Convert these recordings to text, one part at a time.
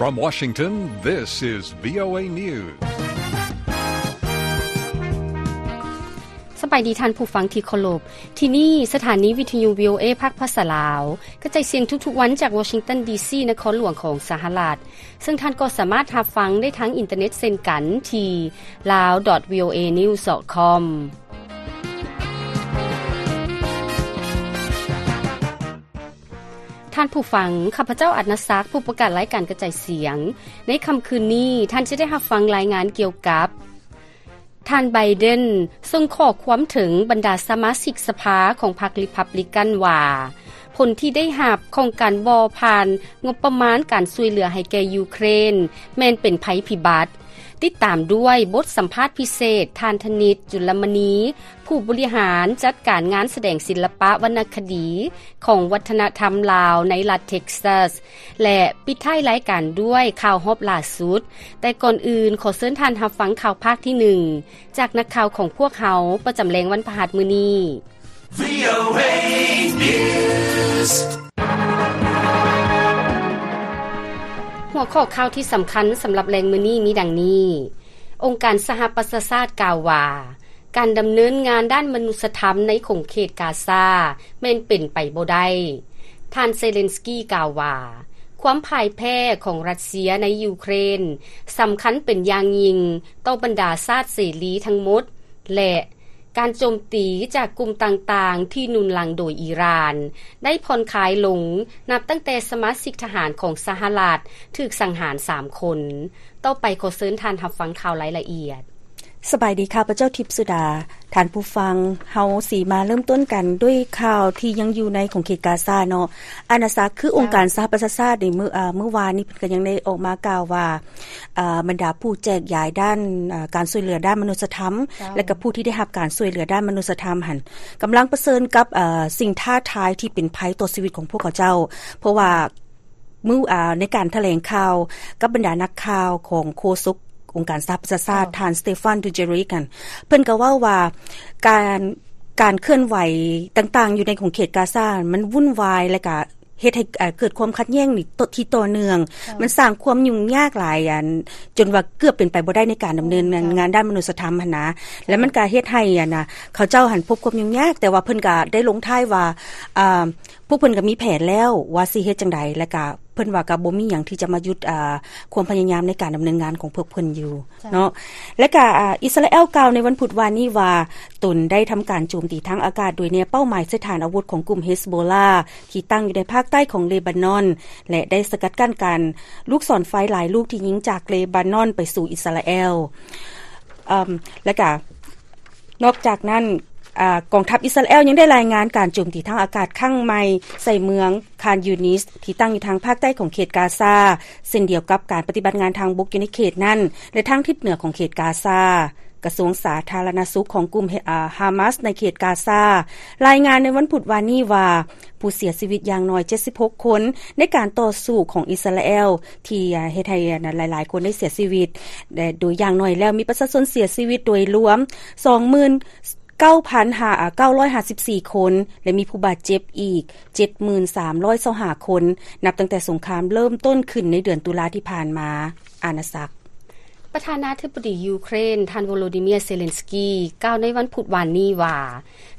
From Washington, this is VOA News. ສະບາຍດີທ່ານຜູ້ຟັງທີ່ເຄົາລົບ. ທີ່ນີ້ສະຖານີວິທະຍຸ VOA ພາກພາສາລາວ ກະຈາຍສຽງທຸກໆວັນຈາກ Washington D C ນະຄອນຫຼວງຂອງສະຫະລັດ, ເຊິ່ງທ່ານກໍສາມາດຮັບຟັງໄດ້ທາງອິນເຕີເນັດເຊັ່ນກັນທີ່ lao dot voanews dot com. ທ່ານຜູ້ຟັງ, ຂ້າພະເຈົ້າ ອັດນະສັກ ຜູ້ປະກາດລາຍການກະຈາຍສຽງ. ໃນຄ່ຳຄືນນີ້, ທ່ານຈະໄດ້ຮັບຟັງລາຍງານກ່ຽວກັບ ທ່ານ Biden ສົ່ງຂໍ້ຄວາມເຖິງບັນດາສະມາຊິກສະພາຂອງພັກ Republican ວ່າ ຜົນທີ່ໄດ້ຮັບຂອງການບໍ່ຜ່ານງົບປະມານການຊ່ວຍເຫຼືອໃຫ້ແກ່ຢູເຄຣນ ແມ່ນເປັນໄພພິບັດ. ຕິດຕາມດ້ວຍບົດສຳພາດພິເສດ ທ່ານ ທະນິດ ຈຸລະມະນີ ຜູ້ບໍລິຫານຈັດການງານສະແດງສິລະປະວັນນະຄະດີຂອງວັດທະນະທຳລາວໃນລັດ Texas ແລະ ປິດທ້າຍລາຍການດ້ວຍຂ່າວຮອບລ່າສຸດ. ແຕ່ກ່ອນອື່ນ, ຂໍເຊີນທ່ານຮັບຟັງຂ່າວພາກທີໜຶ່ງ ຈາກນັກຂ່າວຂອງພວກເຮົາປະຈຳແລງວັນພະຫັດມື້ນີ້. VOA News. ຫົວຂໍ້ຂ່າວທີ່ສຳຄັນສຳລັບແລງມື້ນີ້ມີດັ່ງນີ້. ອົງການສະຫະປະຊາຊາດກ່າວວ່າ ການດຳເນີນງານດ້ານມະນຸດສະທຳໃນຂົງເຂດກາຊາແມ່ນເປັນໄປບໍ່ໄດ້. ທ່ານເຊເລັນສກີກ່າວວ່າ ຄວາມພ່າຍແພ້ຂອງຣັດເຊຍໃນຢູເຄຣນສຳຄັນເປັນຢ່າງຍິ່ງຕໍ່ບັນດາຊາດເສລີທັງໝົດ ແລະ ການໂຈມຕີຈາກກຸ່ມຕ່າງໆທີ່ໜູນຫຼັງໂດຍອີຣານ ໄດ້ຜ່ອນຄາຍລົງ ນັບຕັ້ງແຕ່ສະມາຊິກທະຫານຂອງສະຫະລັດຖືກສັງຫານສາມຄົນ. ຕໍ່ໄປຂໍເຊີນທ່ານຮັບຟັງຂ່າວລາຍລະອຽດ. ສະບາຍດີ, ຂ້າພະເຈົ້າ ທິບສຸດາ. ທ່ານຜູ້ຟັງ, ເຮົາຊິມາເລີ່ມຕົ້ນກັນດ້ວຍຂ່າວທີ່ຍັງຢູ່ໃນຂົງເຂດກາຊາເນາະ. ອານາຈັກ ຄືອົງການສະຫະປະຊາຊາດໃນມື້ ເອີ ມື້ວານນີ້ ເພິ່ນກໍຍັງໄດ້ອອກມາກ່າວວ່າ ເອີ ບັນດາຜູ້ແຈກຢາຍດ້ານ ເອີ ການຊ່ວຍເຫຼືອດ້ານມະນຸດສະທຳ ເຈົ້າ ແລະ ກໍຜູ້ທີ່ໄດ້ຮັບການຊ່ວຍເຫຼືອດ້ານມະນຸດສະທຳຫັ້ນ ກຳລັງປະເຊີນກັບ ເອີ ສິ່ງທ້າທາຍທີ່ເປັນໄພຕໍ່ຊີວິດຂອງພວກເຂົາເຈົ້າ ເພາະວ່າ ມື້ ອາ ໃນການຖະແຫຼງຂ່າວກັບບັນດານັກຂ່າວຂອງໂຄສົກອົງການສະຫະປະຊາຊາດ ເຈົ້າ ທ່ານ Stephane Dujarric ຫັ້ນ ເພິ່ນກໍເວົ້າວ່າ ການ ການເຄື່ອນໄຫວຕ່າງໆຢູ່ໃນຂົງເຂດກາຊາ ມັນວຸ່ນວາຍ ແລະ ກະເຮັດໃຫ້ ເອີ ເກີດຄວາມຂັດແຍ່ງນີ້ ທີ່ຕໍ່ເນື່ອງ ເຈົ້າ ມັນສ້າງຄວາມຫຍຸ້ງຍາກຫຼາຍ ອັນ ຈົນວ່າເກືອບເປັນໄປບໍ່ໄດ້ໃນການດຳເນີນ ເຈົ້າ ງານດ້ານມະນຸດສະທຳຫັ້ນນະ ແລະ ມັນກະເຮັດໃຫ້ ອັນນະ ເຂົາເຈົ້າຫັ້ນພົບຄວາມຫຍຸ້ງຍາກ ແຕ່ວ່າເພິ່ນກະໄດ້ລົງທ້າຍວ່າ ອາ ພວກເພິ່ນກໍມີແຜນແລ້ວວ່າຊິເຮັດຈັ່ງໃດ ແລະກະເພິ່ນວ່າກໍບໍ່ມີຫຍັງທີ່ຈະມາຢຸດ ອາ ຄວາມພະຍາຍາມໃນການດຳເນີນງານຂອງພວກເພິ່ນຢູ່ ເຈົ້າ ເນາະ. ແລະກະ ອາ ອິດສະຣາແອລກ່າວໃນວັນພຸດວານນີ້ວ່າ ຕົນໄດ້ທຳການໂຈມຕີທາງອາກາດໂດຍແນເປົ້າໝາຍໃສ່ຖານອາວຸດຂອງກຸ່ມເຮັສໂບລາ ທີ່ຕັ້ງຢູ່ໃນພາກໃຕ້ຂອງເລບານອນ ແລະໄດ້ສະກັດກັ້ນການລູກສອນໄຟຫຼາຍລູກທີ່ຍິງຈາກເລບານອນໄປສູ່ອິດສະຣາແອລ. ອາ ແລະກະ ນອກຈາກນັ້ນ ອາ ກອງທັບອິດສະຣາແອລຍັງໄດ້ລາຍງານການໂຈມຕີທາງອາກາດຄັ້ງໃໝ່ໃສ່ເມືອງຄານຢູນິສ ທີ່ຕັ້ງຢູ່ທາງພາກໃຕ້ຂອງເຂດກາຊາ ເຊັ່ນດຽວກັບການປະຕິບັດງານທາງບົກຢູ່ໃນເຂດນັ້ນ ແລະ ທາງທິດເໜືອຂອງເຂດກາຊາ. ກະຊວງສາທາລະນະສຸກຂອງກຸ່ມ ອາ ຮາມາສໃນເຂດກາຊາ ລາຍງານໃນວັນພຸດວານນີ້ວ່າ ຜູ້ເສຍຊີວິດຢ່າງໜ້ອຍເຈັດສິບຫົກຄົນ ໃນການຕໍ່ສູ້ຂອງອິດສະຣາແອລ ທີ່ເຮັດໃຫ້ຫຼາຍໆຄົນໄດ້ເສຍຊີວິດ ແລະ ໂດຍຢ່າງໜ້ອຍແລ້ວມີປະຊາຊົນເສຍຊີວິດໂດຍລວມສອງໝື່ນເກົ້າພັນເກົ້າຮ້ອຍຫ້າສິບສີ່ຄົນ ແລະ ມີຜູ້ບາດເຈັບອີກເຈັດໝື່ນສາມຮ້ອຍຊາວຫ້າຄົນ ນັບຕັ້ງແຕ່ສົງຄາມເລີ່ມຕົ້ນຂຶ້ນໃນເດືອນຕຸລາທີ່ຜ່ານມາ. ອານາຈັກ ປະທານາທິບໍດີຢູເຄຣນ ທ່ານ ໂວໂລດີເມຍ ເຊເລັນສກີ ກ່າວໃນວັນພຸດວານນີ້ວ່າ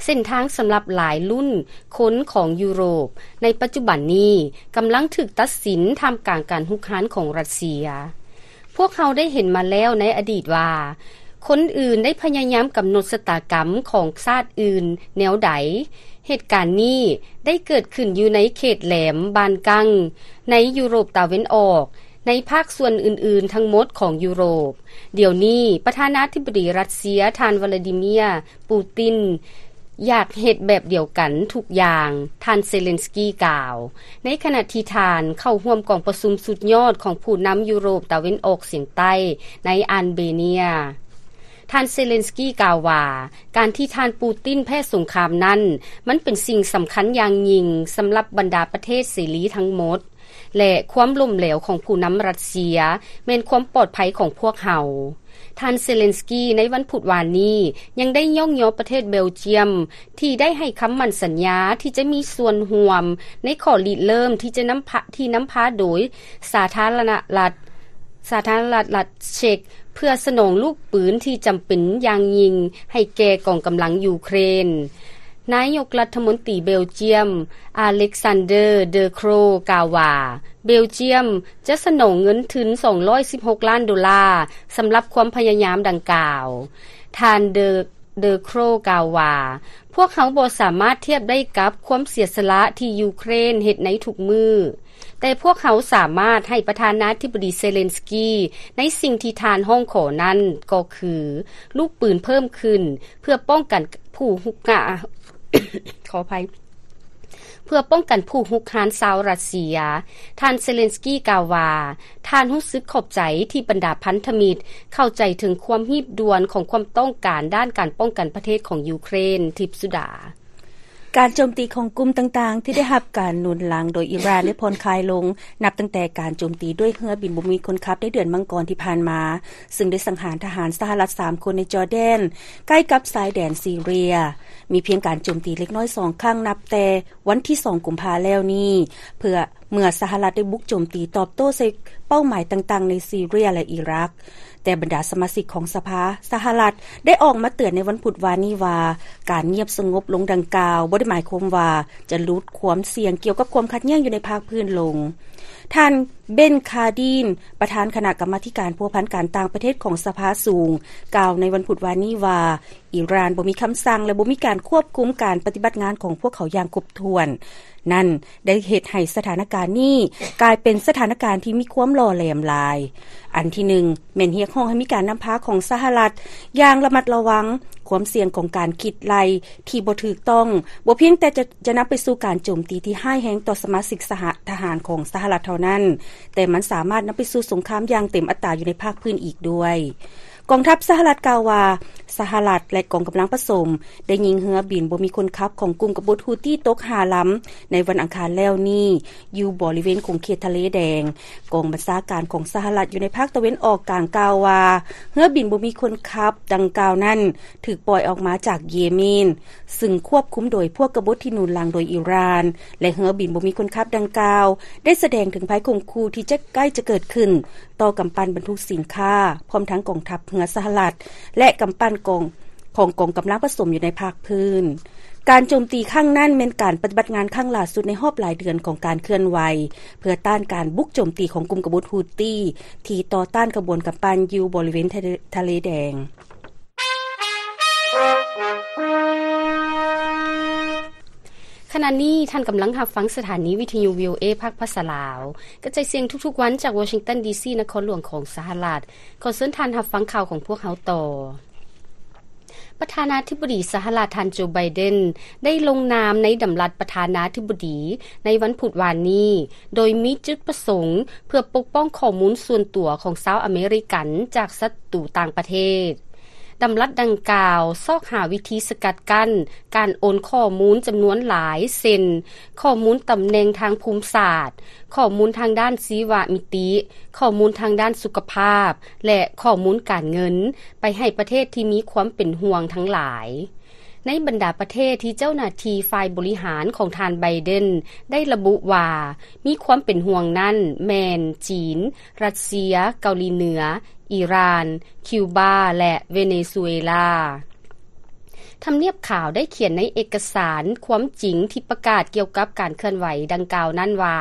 ເສັ້ນທາງສຳລັບຫຼາຍລຸ້ນຄົນຂອງຢູໂຣບໃນປັດຈຸບັນນີ້ກຳລັງຖືກຕັດສິນທ່າມກາງການຮຸກຮານຂອງຣັດເຊຍ. ພວກເຮົາໄດ້ເຫັນມາແລ້ວໃນອະດີດວ່າ ຄົນອື່ນໄດ້ພະຍາຍາມກຳນົດຊະຕາກຳຂອງຊາດອື່ນແນວໃດ. ເຫດການນີ້ໄດ້ເກີດຂຶ້ນຢູ່ໃນເຂດແຫຼມບານກັງ ໃນຢູໂຣບຕາເວັນອອກ ໃນພາກສ່ວນອື່ນໆທັງໝົດຂອງຢູໂຣບ. ດຽວນີ້ປະທານາທິບໍດີຣັດເຊຍ ທ່ານ ວລາດີເມຍ ປູຕິນ ຢາກເຮັດແບບດຽວກັນທຸກຢ່າງ, ທ່ານເຊເລັນສກີກ່າວ ໃນຂະນະທີ່ທ່ານເຂົ້າຮ່ວມກອງປະຊຸມສຸດຍອດຂອງຜູ້ນຳຢູໂຣບຕາເວັນອອກສຽງໃຕ້ໃນອານເບເນຍ. ທ່ານເຊເລັນສກີກ່າວວ່າ ການທີ່ທ່ານປູຕິນແພ້ສົງຄາມນັ້ນ ມັນເປັນສິ່ງສຳຄັນຢ່າງຍິ່ງສຳລັບບັນດາປະເທດເສລີທັງໝົດ. ແລະ ຄວາມລົ້ມເຫຼວຂອງຜູ້ນຳຣັດເຊຍ ແມ່ນຄວາມປອດໄພຂອງພວກເຮົາ. ທ່ານເຊເລັນສກີໃນວັນພຸດວານນີ້ ຍັງໄດ້ຍ້ອງຍໍປະເທດເບລຈຽມ ທີ່ໄດ້ໃຫ້ຄຳໝັ້ນສັນຍາທີ່ຈະມີສ່ວນຮ່ວມໃນຂໍ້ລິເລີ່ມທີ່ຈະນຳພາ ທີ່ນຳພາໂດຍສາທາລະນະລັດ ສາທາລະນະລັດເຊັກ ເພື່ອສະໜອງລູກປືນທີ່ຈຳເປັນຢ່າງຍິ່ງໃຫ້ແກ່ກອງກຳລັງຢູເຄຣນ. ນາຍົກລັດຖະມົນຕີເບລຈຽມ ອາເລັກຊານເດີ ເດີໂຄຣ ກ່າວວ່າ ເບລຈຽມຈະສະໜອງເງິນທຶນສອງຮ້ອຍສິບຫົກລ້ານໂດລາ ສຳລັບຄວາມພະຍາຍາມດັ່ງກ່າວ. ທ່ານເດີ ເດີໂຄຣ ກ່າວວ່າ ພວກເຮົາບໍ່ສາມາດທຽບໄດ້ກັບຄວາມເສຍສະຫຼະທີ່ຢູເຄຣນເຮັດໃນທຸກມື້, ແຕ່ພວກເຮົາສາມາດໃຫ້ປະທານາທິບໍດີເຊເລັນສກີໃນສິ່ງທີ່ທ່ານຮ້ອງຂໍນັ້ນ ກໍຄືລູກປືນເພີ່ມຂຶ້ນ ເພື່ອປ້ອງກັນຜູ້ຮຸກຮານ ຂໍອະໄພ ເພື່ອປ້ອງກັນຜູ້ຮຸກຮານຊາວຣັດເຊຍ. ທ່ານເຊເລັນສກີກ່າວວ່າ ທ່ານຮູ້ສຶກຂອບໃຈທີ່ບັນດາພັນທະມິດເຂົ້າໃຈເຖິງຄວາມຮີບດ່ວນຂອງຄວາມຕ້ອງການດ້ານການປ້ອງກັນປະເທດຂອງຢູເຄຣນ. ທິບສຸດາ. ການໂຈມຕີຂອງກຸ່ມຕ່າງໆທີ່ໄດ້ຮັບການໜູນຫຼັງໂດຍອີຣານໄດ້ຜ່ອນຄາຍລົງ ນັບຕັ້ງແຕ່ການໂຈມຕີດ້ວຍເຮືອບິນບໍ່ມີຄົນຂັບໃນເດືອນມັງກອນທີ່ຜ່ານມາ, ຊຶ່ງໄດ້ສັງຫານທະຫານສະຫະລັດສາມຄົນໃນຈໍແດນ ໃກ້ກັບຊາຍແດນຊີເຣຍ. ມີພຽງການໂຈມຕີເລັກນ້ອຍສອງຄັ້ງນັບແຕ່ວັນທີສອງ ກຸມພາແລ້ວນີ້ ເພື່ອ ເມື່ອສະຫະລັດໄດ້ບຸກໂຈມຕີຕອບໂຕ້ໃສ່ເປົ້າໝາຍຕ່າງໆໃນຊີເຣຍ ແລະ ອີຣັກ. ແຕ່ບັນດາສະມາຊິກຂອງສະພາສະຫະລັດໄດ້ອອກມາເຕືອນໃນວັນພຸດວານນີ້ວ່າ ການງຽບສະຫງົບລົງດັ່ງກ່າວ ບໍ່ໄດ້ໝາຍຄວາມວ່າຈະຫຼຸດຄວາມສ່ຽງກ່ຽວກັບຄວາມຂັດແຍ່ງຢູ່ໃນພາກພື້ນລົງ. ທ່ານ ເບັນ ຄາດີນ ປະທານຄະນະກຳມາທິການພົວພັນການຕ່າງປະເທດຂອງສະພາສູງ ກ່າວໃນວັນພຸດວານນີ້ວ່າ ອີຣານບໍ່ມີຄຳສັ່ງ ແລະ ບໍ່ມີການຄວບຄຸມການປະຕິບັດງານຂອງພວກເຂົາຢ່າງຄົບຖ້ວນ. ນັ້ນໄດ້ເຮັດໃຫ້ສະຖານະການນີ້ກາຍເປັນສະຖານະການທີ່ມີຄວາມຫຼໍ່ແຫຼມຫຼາຍ. ອັນທີໜຶ່ງ ແມ່ນຮຽກຮ້ອງໃຫ້ມີການນຳພາຂອງສະຫະລັດຢ່າງລະມັດລະວັງ, ຄວາມສ່ຽງຂອງການຄິດໄລ່ທີ່ບໍ່ຖືກຕ້ອງ ບໍ່ພຽງແຕ່ຈະ ຈະນຳໄປສູ່ການໂຈມຕີທີ່ຮ້າຍແຮງຕໍ່ສະມາຊິກສະຫະ ທະຫານຂອງສະຫະລັດເທົ່ານັ້ນ, ແຕ່ມັນສາມາດນຳໄປສູ່ສົງຄາມຢ່າງເຕັມອັດຕາຢູ່ໃນພາກພື້ນອີກດ້ວຍ. ກອງທັບສະຫະລັດກ່າວວ່າ ສະຫະລັດ ແລະ ກອງກຳລັງປະສົມ ໄດ້ຍິງເຮືອບິນບໍ່ມີຄົນຂັບຂອງກຸ່ມກະບົດຮູ້ຕີຕົກຫ້າລຳ ໃນວັນອັງຄານແລ້ວນີ້ ຢູ່ບໍລິເວນຂົງເຂດທະເລແດງ. ກອງບັນຊາການຂອງສະຫະລັດຢູ່ໃນພາກຕາເວັນອອກກາງກ່າວວ່າ ເຮືອບິນບໍ່ມີຄົນຂັບດັ່ງກ່າວນັ້ນ ຖືກປ່ອຍອອກມາຈາກເຢເມນ ຊຶ່ງຄວບຄຸມໂດຍພວກກະບົດທີ່ໜູນຫຼັງໂດຍອີຣານ ແລະ ເຮືອບິນບໍ່ມີຄົນຂັບດັ່ງກ່າວ ໄດ້ສະແດງເຖິງໄພຂົ່ມຂູ່ທີ່ຈະໃກ້ຈະເກີດຂຶ້ນ ຕໍ່ກຳປັ່ນບັນທຸກສິນຄ້າ ພ້ອມທັງກອງທັບເຮືອສະຫະລັດ ແລະ ກຳປັ່ນກອງ ຂອງກອງກຳລັງປະສົມຢູ່ໃນພາກພື້ນ. ການໂຈມຕີຄັ້ງນັ້ນແມ່ນການປະຕິບັດງານຄັ້ງຫຼ້າສຸດໃນຮອບຫຼາຍເດືອນຂອງການເຄື່ອນໄຫວ ເພື່ອຕ້ານການບຸກໂຈມຕີຂອງກຸ່ມກະບົດຮູ້ຕີ ທີ່ຕໍ່ຕ້ານຂະບວນກຳປັ່ນຢູ່ບໍລິເວນທະເລ ທະເລແດງ. ຂະນະນີ້ທ່ານກຳລັງຮັບຟັງສະຖານີວິທະຍຸ ວີໂອເອ ພາກພາສາລາວ ກະຈາຍສຽງທຸກໆວັນຈາກວໍຊິງຕັນ ດີຊີ ນະຄອນຫຼວງຂອງສະຫະລັດ. ຂໍເຊີນທ່ານຮັບຟັງຂ່າວຂອງພວກເຮົາຕໍ່. ປະທານາທິບໍດີສະຫະລັດ ທ່ານ ໂຈ ໄບເດັນ ໄດ້ລົງນາມໃນດຳລັດປະທານາທິບໍດີໃນວັນພຸດວານນີ້ ໂດຍມີຈຸດປະສົງເພື່ອປົກປ້ອງຂໍ້ມູນສ່ວນຕົວຂອງຊາວອາເມລິກັນຈາກສັດຕູຕ່າງປະເທດ. ດຳລັດດັ່ງກ່າວຊອກຫາວິທີສະກັດກັ້ນການໂອນຂໍ້ມູນຈຳນວນຫຼາຍ ເຊັ່ນ ຂໍ້ມູນຕຳແໜ່ງທາງພູມສາດ, ຂໍ້ມູນທາງດ້ານຊີວະມິຕິ, ຂໍ້ມູນທາງດ້ານສຸຂະພາບ ແລະ ຂໍ້ມູນການເງິນ ໄປໃຫ້ປະເທດທີ່ມີຄວາມເປັນຫ່ວງທັງຫຼາຍ. ໃນບັນດາປະເທດທີ່ເຈົ້າໜ້າທີ່ຝ່າຍບໍລິຫານຂອງທ່ານ ໄບເດັນ ໄດ້ລະບຸວ່າມີຄວາມເປັນຫ່ວງນັ້ນ ແມ່ນ ຈີນ, ຣັດເຊຍ, ເກົາຫຼີເໜືອ, ອີຣານ, ຄິວບາ ແລະ ເວເນຊູເອລາ. ທຳນຽບຂາວໄດ້ຂຽນໃນເອກະສານຄວາມຈິງທີ່ປະກາດກ່ຽວກັບການເຄື່ອນໄຫວດັ່ງກ່າວນັ້ນວ່າ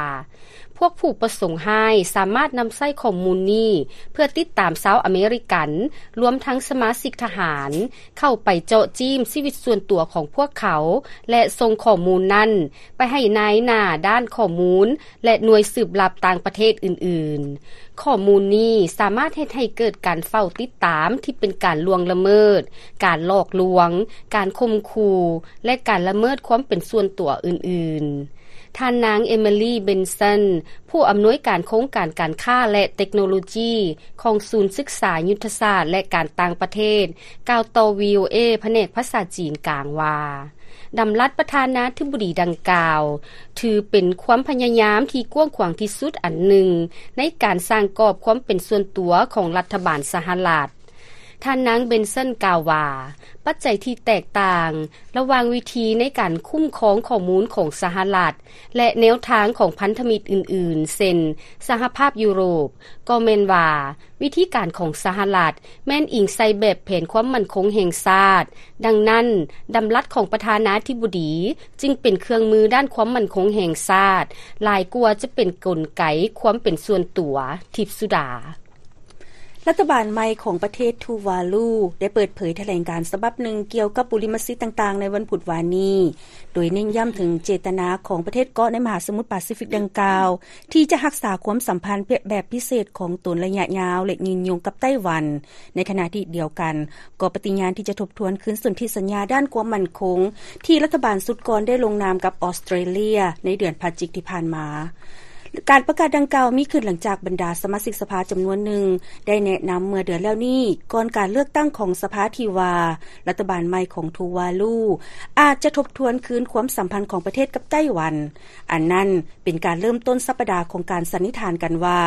ພວກຜູ້ປະສົງຮ້າຍສາມາດນຳໃຊ້ຂໍ້ມູນນີ້ເພື່ອຕິດຕາມຊາວອາເມລິກັນ, ລວມທັງສະມາຊິກທະຫານ, ເຂົ້າໄປເຈາະຈີ້ມຊີວິດສ່ວນຕົວຂອງພວກເຂົາ ແລະ ສົ່ງຂໍ້ມູນນັ້ນໄປໃຫ້ນາຍໜ້າດ້ານຂໍ້ມູນ ແລະ ໜ່ວຍສືບລັບຕ່າງປະເທດອື່ນໆ. ຂໍ້ມູນນີ້ສາມາດເຮັດໃຫ້ເກີດການເຝົ້າຕິດຕາມທີ່ເປັນການລ່ວງລະເມີດ, ການຫຼອກລວງ, ການຂົ່ມຂູ່ ແລະ ການລະເມີດຄວາມເປັນສ່ວນຕົວອື່ນໆ. ທ່ານນາງ ເອມິລີ ເບັນສັນ ຜູ້ອຳນວຍການໂຄງການການຄ້າ ແລະ ເຕັກໂນໂລຈີຂອງສູນສຶກສາຍຸດທະສາດ ແລະ ການຕ່າງປະເທດ ກ່າວຕໍ່ ວີໂອເອ ພະແນກພາສາຈີນກາງວ່າ, ດຳລັດປະທານາທິບໍດີດັ່ງກ່າວ ຖືເປັນຄວາມພະຍາຍາມທີ່ກວ້າງຂວາງທີ່ສຸດອັນໜຶ່ງ ໃນການສ້າງກອບຄວາມເປັນສ່ວນຕົວຂອງລັດຖະບານສະຫະລັດ. ທ່ານນາງ ເບັນເຊິນ ກ່າວວ່າ, ປັດໄຈທີ່ແຕກຕ່າງລະຫວ່າງວິທີໃນການຄຸ້ມຄອງຂໍ້ມູນຂອງສະຫະລັດ ແລະ ແນວທາງຂອງພັນທະມິດອື່ນໆ ເຊັ່ນ ສະຫະພາບຢູໂຣບ, ກໍແມ່ນວ່າ ວິທີການຂອງສະຫະລັດແມ່ນອີງໃສ່ແບບແຜນຄວາມໝັ້ນຄົງແຫ່ງຊາດ. ດັ່ງນັ້ນ, ດຳລັດຂອງປະທານາທິບໍດີຈຶ່ງເປັນເຄື່ອງມືດ້ານຄວາມໝັ້ນຄົງແຫ່ງຊາດ ຫຼາຍກວ່າຈະເປັນກົນໄກຄວາມເປັນສ່ວນຕົວ. ທິບສຸດາ. ລັດຖະບານໃໝ່ຂອງປະເທດທູວາລູ ໄດ້ເປີດເຜີຍຖະແຫຼງການສະບັບໜຶ່ງກ່ຽວກັບບຸລິມະສິດຕ່າງໆ ໃນວັນພຸດວານນີ້, ໂດຍເນັ້ນຢ້ຳເຖິງເຈດຕະນາຂອງປະເທດເກາະໃນມະຫາສະໝຸດປາຊີຟິກດັ່ງກ່າວ ທີ່ຈະຮັກສາຄວາມສຳພັນແບບພິເສດຂອງຕົນໄລຍະຍາວ ແລະ ຍືນຍົງກັບໄຕ້ຫວັນ. ໃນຂະນະທີ່ດຽວກັນ, ກໍປະຕິຍານທີ່ຈະທົບທວນຄືນສົນທິສັນຍາດ້ານຄວາມໝັ້ນຄົງ ທີ່ລັດຖະບານຊຸດກ່ອນໄດ້ລົງນາມກັບອອສເຕຣເລຍໃນເດືອນພະຈິກທີ່ຜ່ານມາ. ການປະກາດດັ່ງກ່າວມີຂຶ້ນຫຼັງຈາກບັນດາສະມາຊິກສະພາຈຳນວນໜຶ່ງ ໄດ້ແນະນຳເມື່ອເດືອນແລ້ວນີ້ ກ່ອນການເລືອກຕັ້ງຂອງສະພາ ທີ່ວ່າ ລັດຖະບານໃໝ່ຂອງທູວາລູ ອາດຈະທົບທວນຄືນຄວາມສຳພັນຂອງປະເທດກັບໄຕ້ຫວັນ. ອັນນັ້ນເປັນການເລີ່ມຕົ້ນສັບປະດາຂອງການສັນນິຖານກັນວ່າ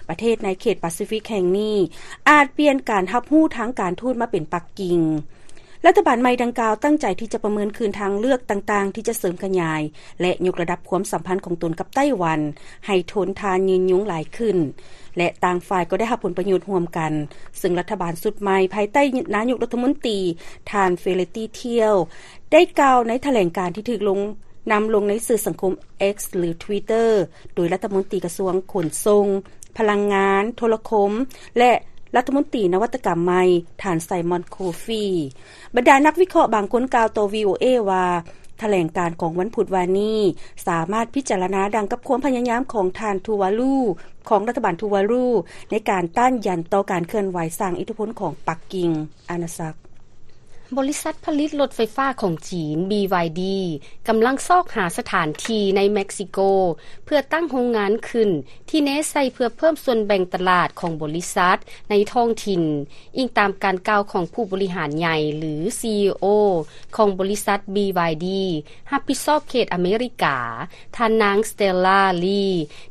ປະເທດໃນເຂດປາຊີຟິກແຫ່ງນີ້ ອາດປ່ຽນການຮັບຮູ້ທາງການທູດມາເປັນປັກກິ່ງ. ລັດຖະບານໃໝ່ດັ່ງກ່າວຕັ້ງໃຈທີ່ຈະປະເມີນຄືນທາງເລືອກຕ່າງໆ ທີ່ຈະເສີມຂະຫຍາຍ ແລະ ຍົກລະດັບຄວາມສຳພັນຂອງຕົນກັບໄຕ້ຫວັນ ໃຫ້ທົນທານຍືນຍົງຫຼາຍຂຶ້ນ ແລະ ຕ່າງຝ່າຍກໍໄດ້ຮັບຜົນປະໂຫຍດຮ່ວມກັນ, ເຊິ່ງລັດຖະບານຊຸດໃໝ່ພາຍໃຕ້ນາຍົກລັດຖະມົນຕີ ທ່ານ ເຟເລຕີ ທຽວ ໄດ້ກ່າວໃນຖະແຫຼງການທີ່ຖືກລົງ ນຳລົງໃນສື່ສັງຄົມ X ຫຼື Twitter ໂດຍລັດຖະມົນຕີກະຊວງຂົນສົ່ງ, ພະລັງງານ, ໂທລະຄົມ ແລະ ລັດຖະມົນຕີນະວັດຕະກຳໃໝ່ ທ່ານ ໄຊມອນ ໂຄຟີ. ບັນດານັກວິເຄາະບາງຄົນກ່າວຕໍ່ ວີ ໂອ ເອ ວ່າ ຖະແຫຼງການຂອງວັນພຸດວານນີ້ ສາມາດພິຈາລະນາດັ່ງກັບຄວາມພະຍາຍາມຂອງທ່ານທູວາລູ ຂອງລັດຖະບານທູວາລູ ໃນການຕ້ານຢັນຕໍ່ການເຄື່ອນໄຫວສ້າງອິດທິພົນຂອງປັກກິ່ງ. ອານາສັກ. ບໍລິສັດຜະລິດລົດໄຟຟ້າຂອງຈີນ ບີວາຍດີ ກຳລັງຊອກຫາສະຖານທີ່ໃນເມັກຊິໂກ ເພື່ອຕັ້ງໂຮງງານຂຶ້ນ ທີ່ແນໃສ່ເພື່ອເພີ່ມສ່ວນແບ່ງຕະຫຼາດຂອງບໍລິສັດໃນທ້ອງຖິ່ນ, ອີງຕາມການກ່າວຂອງຜູ້ບໍລິຫານໃຫຍ່ ຫຼື ຊີອີໂອ ຂອງບໍລິສັດ ບີວາຍດີ ຮັບຜິດຊອບເຂດອາເມລິກາ, ທ່ານນາງ ສະເຕລລາ ລີ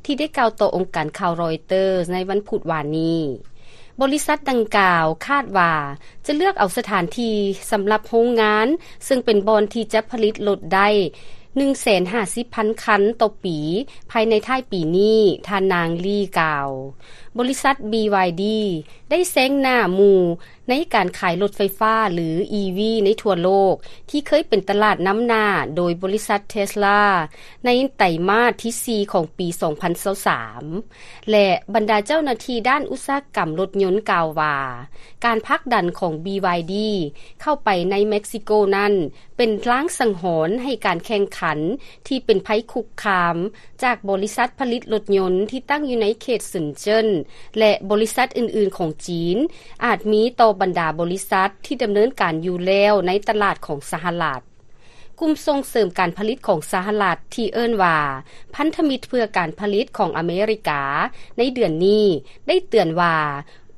ທີ່ໄດ້ກ່າວຕໍ່ອົງການຂ່າວຣອຍເຕີສໃນວັນພຸດວານນີ້. ບໍລິສັດດັ່ງກ່າວຄາດວ່າຈະເລືອກເອົາສະຖານທີ່ສຳລັບໂຮງງານ, ເຊິ່ງເປັນບ່ອນທີ່ຈະຜະລິດລົດໄດ້ ໜຶ່ງແສນຫ້າສິບພັນຄັນຕໍ່ປີ ພາຍໃນທ້າຍປີນີ້, ທ່ານນາງ ລີ ກ່າວ. ບໍລິສັດ ບີວາຍດີ ໄດ້ແຊງໜ້າໝູ່ໃນການຂາຍລົດໄຟຟ້າ ຫຼື ອີ ວີ ໃນທົ່ວໂລກ ທີ່ເຄີຍເປັນຕະຫຼາດນຳໜ້າໂດຍບໍລິສັດ ເທສລາ ໃນໄຕມາດທີສີ່ຂອງປີສອງພັນຊາວສາມ. ແລະ ບັນດາເຈົ້າໜ້າທີ່ດ້ານອຸດສາຫະກຳລົດຍົນກ່າວວ່າ ການຜັກດັນຂອງ ບີວາຍດີ ເຂົ້າໄປໃນເມັກຊິໂກນັ້ນ ເປັນລາງສັງຫອນໃຫ້ການແຂ່ງຂັນທີ່ເປັນໄພຄຸກຄາມຈາກບໍລິສັດຜະລິດລົດຍົນທີ່ຕັ້ງຢູ່ໃນເຂດເຊິນເຈິນ ແລະ ບໍລິສັດອື່ນໆຂອງຈີນ ອາດມີຕໍ່ບັນດາບໍລິສັດທີ່ດຳເນີນການຢູ່ແລ້ວໃນຕະຫຼາດຂອງສະຫະລັດ. ກຸ່ມສົ່ງເສີມການຜະລິດຂອງສະຫະລັດ ທີ່ເອີ້ນວ່າ ພັນທະມິດເພື່ອການຜະລິດຂອງອາເມລິກາ ໃນເດືອນນີ້ໄດ້ເຕືອນວ່າ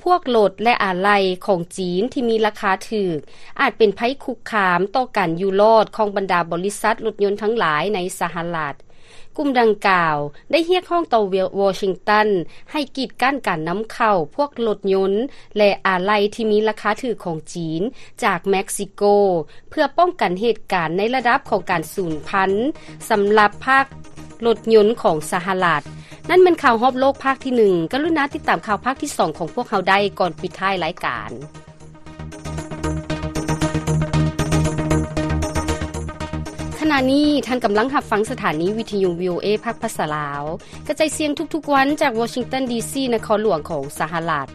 ພວກລົດ ແລະ ອາໄຫຼ່ຂອງຈີນທີ່ມີລາຄາຖືກ ອາດເປັນໄພຄຸກຄາມຕໍ່ການຢູ່ລອດຂອງບັນດາບໍລິສັດລົດຍົນທັງຫຼາຍໃນສະຫະລັດ. ກຸ່ມດັ່ງກ່າວໄດ້ຮຽກຮ້ອງຕໍ່ວໍຊິງຕັນໃຫ້ກີດກັ້ນການນຳເຂົ້າພວກລົດຍົນ ແລະ ອາໄຫຼ່ທີ່ມີລາຄາຖືກຂອງຈີນຈາກເມັກຊິໂກ ເພື່ອປ້ອງກັນເຫດການໃນລະດັບຂອງການສູນພັນສຳລັບພາກລົດຍົນຂອງສະຫະລັດ. ນັ້ນແມ່ນຂ່າວຮອບໂລກພາກທີໜຶ່ງ. ກະລຸນາຕິດຕາມຂ່າວພາກທີສອງຂອງພວກເຮົາໄດ້ກ່ອນປິດທ້າຍລາຍການ. ຂະນະນີ້ທ່ານກຳລັງຮັບຟັງສະຖານີວິທະຍຸ ວີ ໂອ ເອ ພາກພາສາລາວ ກະຈາຍສຽງທຸກໆວັນຈາກວໍຊິງຕັນ ດີ ຊີ ນະຄອນຫຼວງຂອງສະຫະລັດ.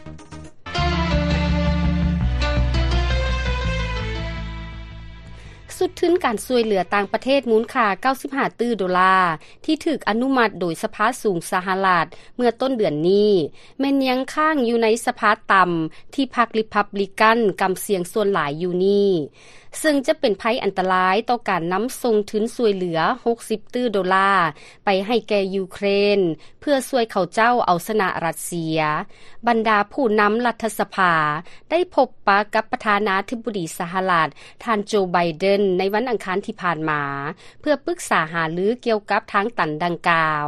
ຊຸດທຶນການຊ່ວຍເຫຼືອຕ່າງປະເທດມູນຄ່າເກົ້າສິບຫ້າຕື້ໂດລາ ທີ່ຖືກອະນຸມັດໂດຍສະພາສູງສະຫະລັດເມື່ອຕົ້ນເດືອນນີ້ ແມ່ນຍັງຄ້າງຢູ່ໃນສະພາຕ່ຳ ທີ່ພັກ ຣີພັບບລິກັນ ກຳສຽງສ່ວນຫຼາຍຢູ່ນີ້. ເຊິ່ງຈະເປັນໄພອັນຕະລາຍຕໍ່ການນຳສົ່ງທຶນຊ່ວຍເຫຼືອຫົກສິບຕື້ໂດລາໄປໃຫ້ແກ່ຢູເຄຣນ ເພື່ອຊ່ວຍເຂົາເຈົ້າເອົາຊະນະຣັດເຊຍ. ບັນດາຜູ້ນຳລັດຖະສະພາໄດ້ພົບປະກັບປະທານາທິບໍດີສະຫະລັດ ທ່ານໂຈ ໄບເດັນ ໃນວັນອັງຄານທີ່ຜ່ານມາ ເພື່ອປຶກສາຫາລືກ່ຽວກັບທາງຕັນດັ່ງກ່າວ.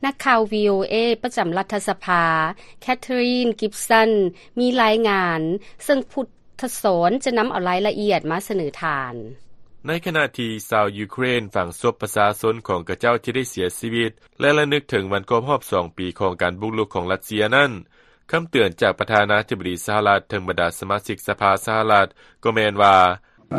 ນັກຂ່າວ ວີໂອເອ ປະຈຳລັດຖະສະພາ ແຄທຣີນ ກິບສັນ ມີລາຍງານ, ເຊິ່ງພຸດທະສອນຈະນຳເອົາລາຍລະອຽດມາສະເໜີທ່ານ. ໃນຂະນະທີ່ຊາວຢູເຄຣນຝັງສົບປະຊາຊົນຂອງເຂົາເຈົ້າທີ່ໄດ້ເສຍຊີວິດ ແລະ ລະນຶກເຖິງວັນຄົບຮອບສອງປີຂອງການບຸກລຸກຂອງຣັດເຊຍນັ້ນ, ຄຳເຕືອນຈາກປະທານາທິບໍດີສະຫະລັດເຖິງບັນດາສະມາຊິກສະພາສະຫະລັດກໍແມ່ນວ່າ,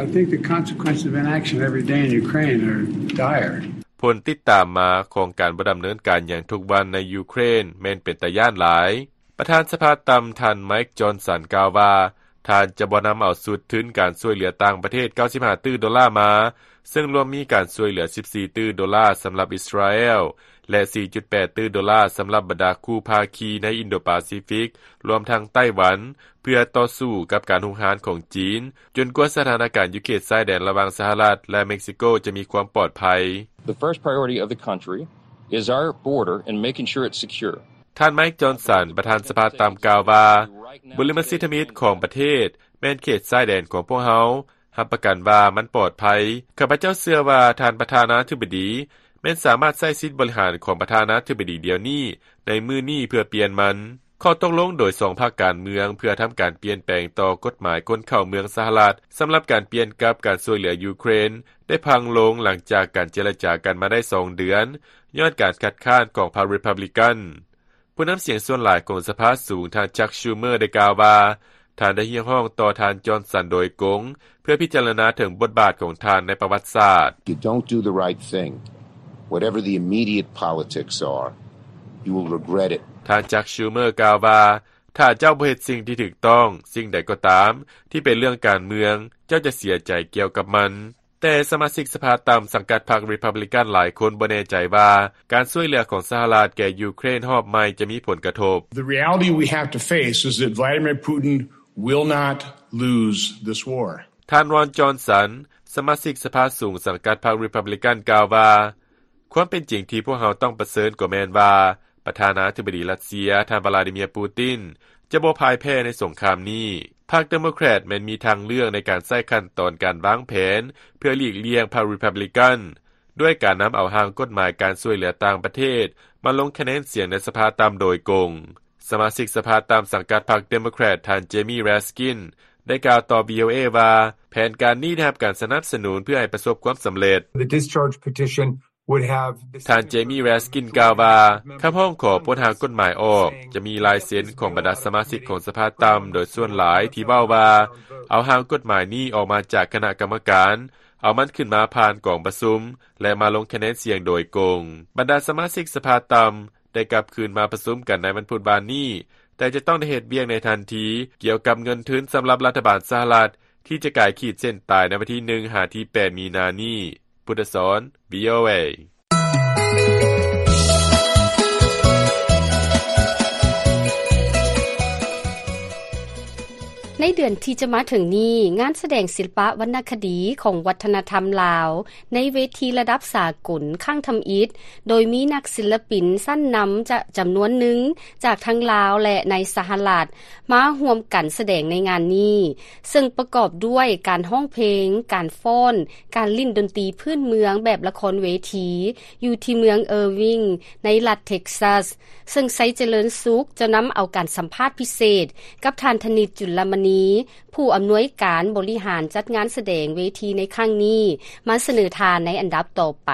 I think the consequences of inaction every day in Ukraine are dire. ຜົນຕິດຕາມມາຂອງການບໍ່ດຳເນີນການຫຍັງທຸກວັນໃນຢູເຄຣນແມ່ນເປັນຕາຢ້ານຫຼາຍ. ປະທານສະພາຕ່ຳ ທ່ານ ໄມຄ໌ ຈອນສັນ ກ່າວວ່າ ທ່ານຈະບໍ່ນຳເອົາຊຸດທຶນການຊ່ວຍເຫຼືອຕ່າງປະເທດເກົ້າສິບຫ້າຕື້ໂດລາມາ, ເຊິ່ງລວມມີການຊ່ວຍເຫຼືອສິບສີ່ຕື້ໂດລາສຳລັບອິດສະຣາແອລ ແລະ ສີ່ຈຸດແປດຕື້ໂດລາສຳລັບບັນດາຄູ່ພາຄີໃນອິນໂດປາຊີຟິກ, ລວມທັງໄຕ້ຫວັນ, ເພື່ອຕໍ່ສູ້ກັບການຮຸກຮານຂອງຈີນ, ຈົນກວ່າສະຖານະການຢູ່ເຂດຊາຍແດນລະຫວ່າງສະຫະລັດ ແລະ ເມັກຊິໂກຈະມີຄວາມປອດໄພ. The first priority of the country is our border and making sure it's secure. ທ່ານ ໄມຄ໌ ຈອນສັນ ປະທານສະພາຕ່ຳ ກ່າວວ່າ, ບຸລິມະສິດທຳອິດຂອງປະເທດແມ່ນເຂດຊາຍແດນຂອງພວກເຮົາ. ຮັບປະກັນວ່າມັນປອດໄພ. ຂ້າພະເຈົ້າເຊື່ອວ່າທ່ານປະທານາທິບໍດີແມ່ນສາມາດໃຊ້ສິດບໍລິຫານຂອງປະທານາທິບໍດີດຽວນີ້ ໃນມື້ນີ້ເພື່ອປ່ຽນມັນ. ຂໍ້ຕົກລົງໂດຍສອງພັກການເມືອງເພື່ອທຳການປ່ຽນແປງຕໍ່ກົດໝາຍຄົນເຂົ້າເມືອງສະຫະລັດ ສຳລັບການປ່ຽນກັບການຊ່ວຍເຫຼືອຢູເຄຣນ ໄດ້ພັງລົງຫຼັງຈາກການເຈລະຈາກັນມາໄດ້ສອງເດືອນ ຍ້ອນການຄັດຄ້ານຂອງພັກຣີພັບລິກັນ. ຜູ້ນຳສຽງສ່ວນຫຼາຍຂອງສະພາສູງ ທ່ານ ຈັກ ຊູເມີ ໄດ້ກ່າວວ່າ ທ່ານໄດ້ຮຽກຮ້ອງຕໍ່ທ່ານ ຈອນສັນ ໂດຍກົງ ເພື່ອພິຈາລະນາເຖິງບົດບາດຂອງທ່ານໃນປະຫວັດສາດ. You don't do the right thing, whatever the immediate politics are, you will regret it. ທ່ານ ຈັກ ຊູເມີ ກ່າວວ່າ ຖ້າເຈົ້າບໍ່ເຮັດສິ່ງທີ່ຖືກຕ້ອງ, ສິ່ງໃດກໍຕາມທີ່ເປັນເລື່ອງການເມືອງ, ເຈົ້າຈະເສຍໃຈກ່ຽວກັບມັນ. ແຕ່ສະມາຊິກສະພາຕ່ຳສັງກັດພັກຣີພັບລິກັນຫຼາຍຄົນບໍ່ແນ່ໃຈວ່າ ການຊ່ວຍເຫຼືອຂອງສະຫະລັດແກ່ຢູເຄຣນຮອບໃໝ່ຈະມີຜົນກະທົບ. The reality we have to face is that Vladimir Putin will not lose this war. ທ່ານ ຣອນ ຈອນສັນ ສະມາຊິກສະພາສູງສັງກັດພັກຣີພັບລິກັນ ກ່າວວ່າ, ຄວາມເປັນຈິງທີ່ພວກເຮົາຕ້ອງປະເຊີນກໍແມ່ນວ່າ ປະທານາທິບໍດີຣັດເຊຍ ທ່ານ ວລາດີເມຍ ປູຕິນ ຈະບໍ່ພ່າຍແພ້ໃນສົງຄາມນີ້. ພັກເດໂມແຄຣດແມ່ນມີທາງເລືອກໃນການໃຊ້ຂັ້ນຕອນການວາງແຜນເພື່ອຫຼີກລ່ຽງພັກຣີພັບລິກັນ ດ້ວຍການນຳເອົາຮ່າງກົດໝາຍການຊ່ວຍເຫຼືອຕ່າງປະເທດມາລົງຄະແນນສຽງໃນສະພາຕ່ຳໂດຍກົງ. ສະມາຊິກສະພາຕ່ຳສັງກັດພັກເດໂມແຄຣດ ທ່ານ ເຈມີ ແຣສກິນ ໄດ້ກ່າວຕໍ່ ວີໂອເອ ວ່າ ແຜນການນີ້ໄດ້ຮັບການສະໜັບສະໜູນເພື່ອໃຫ້ປະສົບຄວາມສຳເລັດ. The discharge petition ທ່ານ ເຈມີ ແຣສກິນ ກ່າວວ່າ ຄຳຮ້ອງຂໍປົດຮ່າງກົດໝາຍອອກ ຈະມີລາຍເຊັນຂອງບັນດາສະມາຊິກຂອງສະພາຕ່ຳໂດຍສ່ວນຫຼາຍທີ່ເວົ້າວ່າ ເອົາຮ່າງກົດໝາຍນີ້ອອກມາຈາກຄະນະກຳມະການ, ເອົາມັນຂຶ້ນມາຜ່ານກອງປະຊຸມ ແລະ ມາລົງຄະແນນສຽງໂດຍກົງ. ບັນດາສະມາຊິກສະພາຕ່ຳໄດ້ກັບຄືນມາປະຊຸມກັນໃນວັນພຸດວານນີ້, ແຕ່ຈະຕ້ອງໄດ້ເຮັດວຽກໃນທັນທີກ່ຽວກັບເງິນທຶນສຳລັບລັດຖະບານສະຫະລັດ ທີ່ຈະກາຍຂີດເສັ້ນຕາຍໃນວັນທີໜຶ່ງຫາທີແປດມີນານີ້. ພຸດທະສອນ ວີໂອເອ. ໃນເດືອນທີ່ຈະມາເຖິງນີ້, ງານສະແດງສິລະປະວັນນະຄະດີຂອງວັດທະນະທຳລາວ ໃນເວທີລະດັບສາກົນຄັ້ງທຳອິດ, ໂດຍມີນັກສິລະປິນຊັ້ນນຳຈະ ຈຳນວນໜຶ່ງຈາກທັງລາວ ແລະ ໃນສະຫະລັດ ມາຮ່ວມກັນສະແດງໃນງານນີ້, ເຊິ່ງປະກອບດ້ວຍການຮ້ອງເພງ, ການຟ້ອນ, ການຫຼິ້ນດົນຕີພື້ນເມືອງແບບລະຄອນເວທີ ຢູ່ທີ່ເມືອງເອີວິງ ໃນລັດເທັກຊັສ, ເຊິ່ງໄຊຈະເລີນສຸກຈະນຳເອົາການສຳພາດພິເສດກັບທ່ານ ທະນິດ ຈຸນລະມະນີ ຜູ້ອຳນວຍການບໍລິຫານຈັດງານສະແດງເວທີໃນຄັ້ງນີ້ ມາສະເໜີທ່ານໃນອັນດັບຕໍ່ໄປ.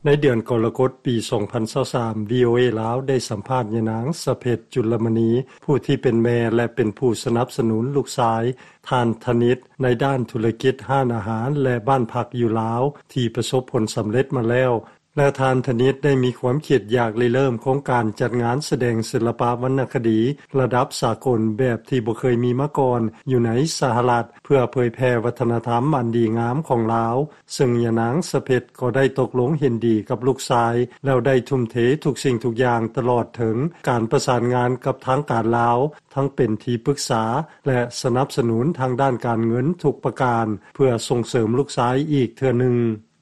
ໃນເດືອນກໍລະກົດປີສອງພັນຊາວສາມ ວີໂອເອ ລາວໄດ້ສຳພາດຍານາງ ສະເພັດ ຈຸນລະມະນີ ຜູ້ທີ່ເປັນແມ່ ແລະ ເປັນຜູ້ສະໜັບສະໜູນລູກຊາຍທ່ານທະນິດ ໃນດ້ານທຸລະກິດຮ້ານອາຫານ ແລະ ບ້ານພັກຢູ່ລາວ ທີ່ປະສົບຜົນສຳເລັດມາແລ້ວ. ແລະ ທ່ານທະນິດໄດ້ມີຄວາມຄິດຢາກລິເລີ່ມໂຄງການຈັດງານສະແດງສິລປະວັນນະຄະດີລະດັບສາກົນແບບທີ່ບໍ່ເຄີຍມີມາກ່ອນຢູ່ໃນສະຫະລັດ ເພື່ອເຜີຍແຜ່ວັດທະນະທຳອັນດີງາມຂອງລາວ, ເຊິ່ງຍານາງສະເພັດກໍໄດ້ຕົກລົງເຫັນດີກັບລູກຊາຍ ແລ້ວໄດ້ທຸ່ມເທທຸກສິ່ງທຸກຢ່າງຕະຫຼອດເຖິງການປະສານງານກັບທາງການລາວ ທັງເປັນທີ່ປຶກສາ ແລະ ສະໜັບສະໜູນທາງດ້ານການເງິນທຸກປະການ ເພື່ອສົ່ງເສີມລູກຊາຍອີກເທື່ອໜຶ່ງ.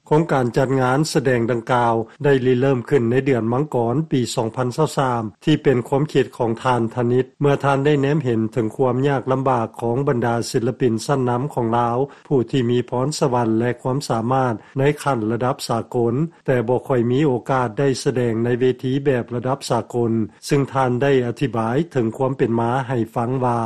ໂຄງການຈັດງານສະແດງດັ່ງກ່າວໄດ້ລິເລີ່ມຂຶ້ນໃນເດືອນມັງກອນປີສອງພັນຊາວສາມ ທີ່ເປັນຄວາມຄິດຂອງທ່ານທະນິດ ເມື່ອທ່ານໄດ້ແນມເຫັນເຖິງຄວາມຍາກລຳບາກຂອງບັນດາສິລະປິນຊັ້ນນຳຂອງລາວ ຜູ້ທີ່ມີພອນສະຫວັນ ແລະ ຄວາມສາມາດໃນຂັ້ນລະດັບສາກົນ ແຕ່ບໍ່ຄ່ອຍມີໂອກາດໄດ້ສະແດງໃນເວທີແບບລະດັບສາກົນ, ເຊິ່ງທ່ານໄດ້ອະທິບາຍເຖິງຄວາມເປັນມາໃຫ້ຟັງວ່າ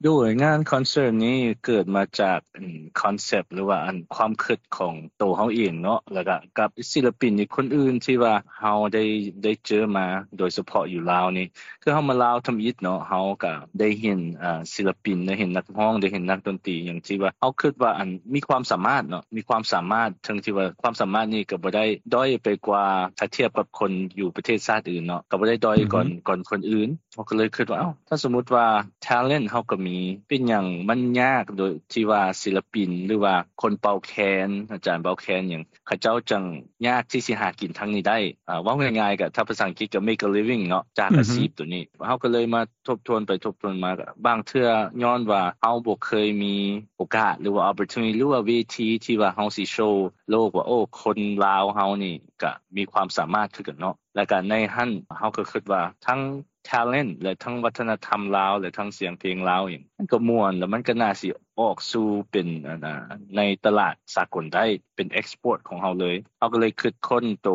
ໂດຍ ງານຄອນເສີດນີ້ເກີດມາຈາກ ອາ ຄອນເຊັບ ຫຼືວ່າ ອັນ ຄວາມຄິດຂອງໂຕເຮົາເອງເນາະ ແລ້ວກະກັບສິລະປິນອີກຄົນອື່ນທີ່ວ່າເຮົາໄດ້ ໄດ້ເຈີມາ ໂດຍສະເພາະຢູ່ລາວນີ້ ຄືເຮົາມາລາວທຳອິດເນາະ ເຮົາກະໄດ້ເຫັນ ອາ ສິລະປິນ ໄດ້ເຫັນນັກຮ້ອງ ໄດ້ເຫັນນັກດົນຕີ ຫຍັງທີ່ວ່າເຮົາຄິດວ່າ ອັນ ມີຄວາມສາມາດເນາະ ມີຄວາມສາມາດ ເຖິງທີ່ວ່າຄວາມສາມາດນີ້ກະບໍ່ໄດ້ດ້ອຍໄປກວ່າ ຖ້າທຽບກັບຄົນຢູ່ປະເທດຊາດອື່ນເນາະ ກະບໍ່ໄດ້ດ້ອຍກ່ອນ ອືຮຶ ກ່ອນຄົນອື່ນ. ເຮົາກໍເລີຍຄິດວ່າ ເອົ້າ ຖ້າສົມມຸດວ່າ talent ເຮົາກໍມີ ເປັນຫຍັງມັນຍາກໂດຍທີ່ວ່າສິລະປິນ ຫຼືວ່າຄົນເປົ່າແຄນ ອາຈານເປົ່າແຄນຫຍັງ ເຂົາເຈົ້າຈັ່ງຍາກທີ່ຊິຫາກິນທາງນີ້ໄດ້? ອາ ເວົ້າງ່າຍໆ ກໍ ຖ້າພາສາອັງກິດກໍ make a living ເນາະ ຈາກ ອືຮຶ ອາຊີບໂຕນີ້. ເຮົາກໍເລີຍມາທົບທວນໄປທົບທວນມາ ບາງເທື່ອຍ້ອນວ່າເຮົາບໍ່ເຄີຍມີໂອກາດ ຫຼືວ່າ opportunity ຫຼືວ່າເວທີທີ່ວ່າເຮົາຊິໂຊໂລກວ່າ ໂອ້ ຄົນລາວເຮົານີ້ກະມີຄວາມສາມາດຄືກັນເນາະ. ແລ້ວກະໃນຫັ້ນເຮົາກໍຄິດວ່າທັງ talent ແລະ ທັງວັດທະນະທຳລາວ ແລະ ທັງສຽງເພງລາວຫຍັງ ມັນກໍມ່ວນ ແລ້ວມັນກໍໜ້າຊິອອກສູ່ເປັນ ອັນ ໃນຕະຫຼາດສາກົນໄດ້ ເປັນ export ຂອງເຮົາເລີຍ. ເຮົາກໍເລີຍຄິດຄົ້ນໂຕ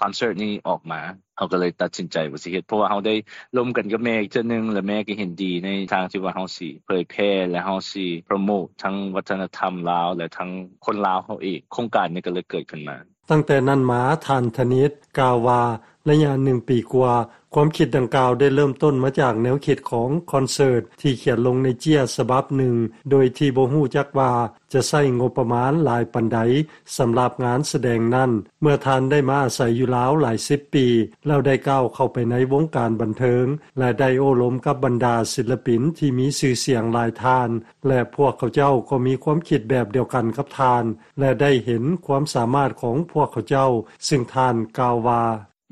ຄອນເສີດນີ້ອອກມາ ເຮົາກໍເລີຍຕັດສິນໃຈວ່າຊິເຮັດ ເພາະວ່າເຮົາໄດ້ລົມກັນກັບແມ່ອີກເທື່ອໜຶ່ງ ແລະ ແມ່ກໍເຫັນດີໃນທາງທີ່ວ່າເຮົາຊິເຜີຍແຜ່ ແລະ ເຮົາຊິ promote ທັງວັດທະນະທຳລາວ ແລະ ທັງຄົນລາວເຮົາເອງ. ໂຄງການນີ້ກໍເລີຍເກີດຂຶ້ນມາ. ຕັ້ງແຕ່ນັ້ນມາ ທ່ານທະນິດ ກ່າວວ່າ ໄລຍະໜຶ່ງປີກວ່າ ຄວາມຄິດດັ່ງກ່າວໄດ້ເລີ່ມຕົ້ນມາຈາກແນວຄິດຂອງຄອນເສີດທີ່ຂຽນລົງໃນເຈ້ຍສະບັບໜຶ່ງ ໂດຍທີ່ບໍ່ຮູ້ຈັກວ່າຈະໃຊ້ງົບປະມານຫຼາຍປານໃດສຳລັບງານສະແດງນັ້ນ. ເມື່ອທ່ານໄດ້ມາອາໄສຢູ່ລາວຫຼາຍສິບປີ ແລ້ວໄດ້ກ້າວເຂົ້າໄປໃນວົງການບັນເທີງ ແລະ ໄດ້ໂອ້ລົມກັບບັນດາສິລະປິນທີ່ມີຊື່ສຽງຫຼາຍທ່ານ ແລະ ພວກເຂົາເຈົ້າກໍມີຄວາມຄິດແບບດຽວກັນກັບທ່ານ ແລະ ໄດ້ເຫັນຄວາມສາມາດຂອງພວກເຂົາເຈົ້າ, ຊຶ່ງທ່ານກ່າວວ່າ